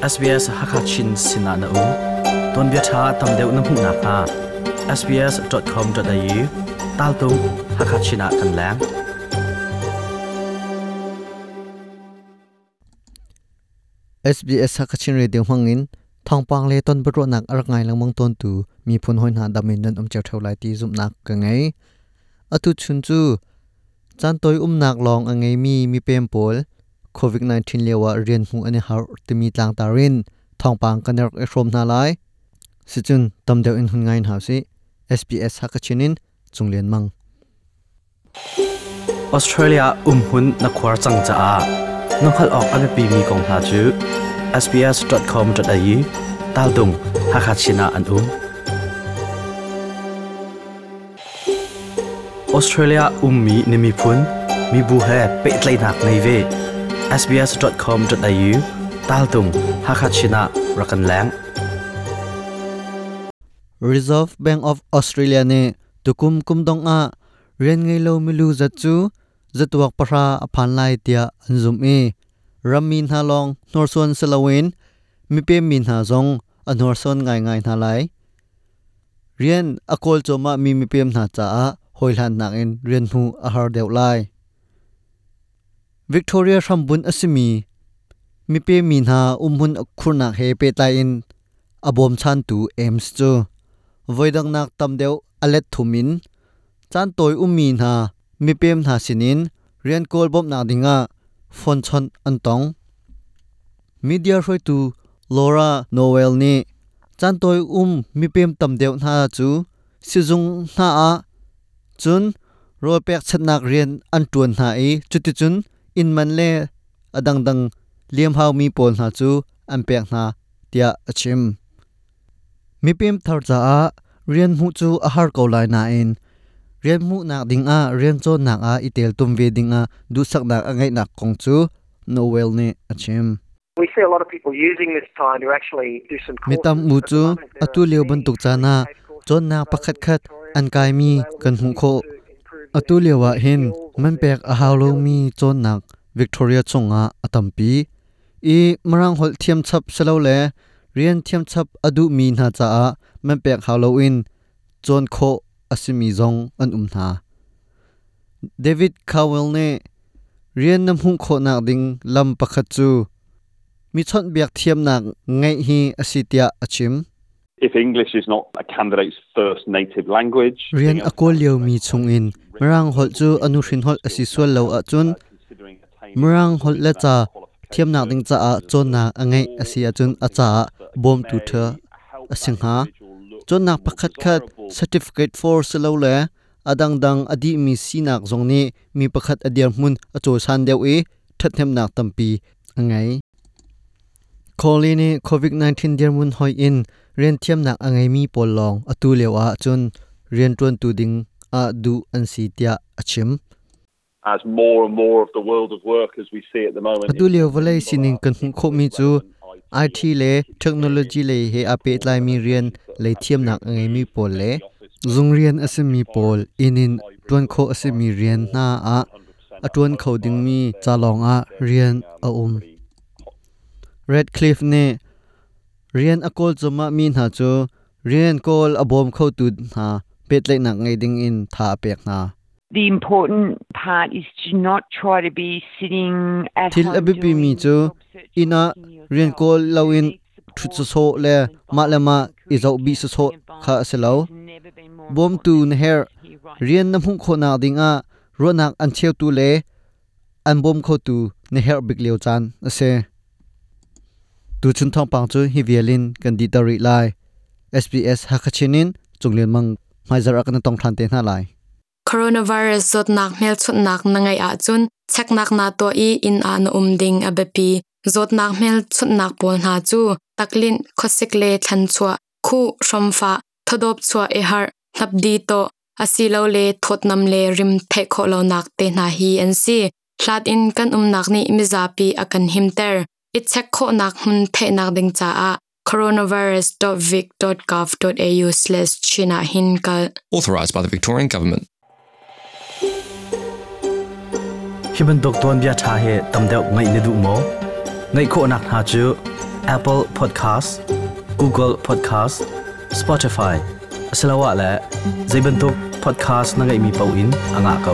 SBS Hakha Chin sinah na um. Tuanbia ṭha tam deuh na hmuh nakhnga sbs.com.au taltung Hakha Chin ah kan leng. SBS Hakachin Radio hmangin thawngpang le ton biaruahnak a rak ngai lengmang tawntu miphun hawi hna dam in nan um cio ṭheo lai ti zumhnak ka ngei. Atu chun cu caan tawi umnak lawng a ngeimi mipem pawl COVID-19 lio ah rian hmuh an i harh timi tlangtar in thawngpang kan rak i hrawm hna lai. Sicun tam deuh in hun ngai hna usih. SBS Hakachin in Cung Lian Mang. Australia umhmun na khuar cang caah na hngalh awk a biapimi kong hna cu sbs.com.au taltung Hakha Chin ah an um. Australia ummi na miphun, mibu he pehtlaihnak ngei ve. sbs.com.au taltung Hakha Chin ah rak kan leng. Reserve Bank of Australia nih tukum kum dong ah rian ngei lo milu zat cu zatuak pahra a phan lai tiah an zumh i rammi hna lawng hnorsuan si loin mipem mi hna zong a hnorsuan ngaingai hna lai. Rian a kawl cuahmah mi mipem hna caah hawihlannak in rian hmuh a har deuh lai. Victoria hrambunh a simi mipem mi hna umhmun khurnak he pehtlai in a bawmchantu Ames cu voidangnak tam deuh a let thum in caan tawi ummi hna mipem hna sinin rian kawl bawmhnak dingah phone chawnh an tong. Media hruaitu Laura Noel nih caan tawi um mipem tam deuh hna cu sizung hna ah cun rawl pekchanhnak rian an ṭuan hna i cuticun inn man le a dangdang liamhaumi pawl hna cu an pek hna tiah a chim. Mipem thar caah rian hmuh cu a har ko lai nain rian hmuhnak dingah rian cawnnak ah i teltum ve dingah duhsaknak a ngeihnak kong cu Noel nih a chim. Mi tam u cu atu lio bantuk caan ah cawnnak pakhatkhat an kaimi kan hmuh khawh. Atu lio ah hin man pek a hau lomi cawnnak Victoria chungah a tampi. I Mirang holh thiam chap silole rian thiam chap a duhmi hna caah man pek hau loin cawn khawh a simi zong an um hna. David Cowell nih rian na hmuh khawhnak ding lam pakhat cu mi chawnhbiak thiamnak ngeih hi a si tiah a chim. If English is not a candidate's first native language, Rian a kawl liomi chungin Mirang holh cu a nuhrin holh a si sual lo ahcun Mirang holh le ca thiamnak ding caah cawnnak a ngeih a si ahcun a caah bawmtu ṭha a si hnga. Cawnnak pakhatkhat certificate for silole a dangdang a dihmi sinak zong nih mi pakhat a dirhmun a cawisan deuh i ṭhathnemnak tampi a ngei. Cawley nih COVID-19 dirhmun hoih in rianthiamnak a ngeimi pawl lawng atu lio ah cun rianṭuantu ding ah duh an si tiah a chim. As more and more of the world of work as we see at the moment. Atu lio vawlei sining kan hmuh khawhmi cu IT le technology lei he aa pehtlaimi rian lei thiamnak a ngeimi pawl le zung rian a simi pawl inn in ṭuan khawh a simi rian hna ah a ṭuan kho dingmi ca lawng ah rian a um. Radcliffe nih rian a kawl cuahmah mi hna cu rian kawl a bawm khotu hna pehtlaihnak ngei ding in tha a pek hna. The important part is to not try to be sitting at Thil a home biapimi doing cu job search inn ah looking rian yourself. kawl You loin need ṭhut support sawsawh and le mah le advice mah and i encouraged zoh bih sawsawh counselling kha a advice si lo. has never been more Bawmtu important na than it herh. is here right Rian now. na hmuh khawhnak dingah ruahnak an cheutu le an bawm khotu na herh bik lio caan a si. Tuchun thawngpang cu hi vial in kan dihter rih lai. SBS Hakachin in Cunglian Mang hmaizarh ah kan tong ṭhan te hna lai. Coronavirus zawtnak hmelchunhnak na ngeih ahcun cheknak naa tuah i inn ah na um ding a biapi. Zawtnak hmelchunhnak pawl hna cu taklinh, khuasik le thlanchuah, khuh, hromfah, thawdawp chuah i harh, hnapdi tawh, asilole thawtnam le rim theih khawh lonak te hna hi an si. Hlat in kan umnak nih mizapi a kan himter. I check khawhnak hmun theihnak ding caah coronavirus.vic.gov.au/chin ah hin kal. Authorised by the Victorian Government. Hi bantuk tuanbia ṭha hi tam deuh ngaih na duh maw? Ngaih khawhnak hna cu Apple Podcast, Google Podcast, Spotify asiloah le zeibantuk podcast na ngeihmi paoh in a ngah ko.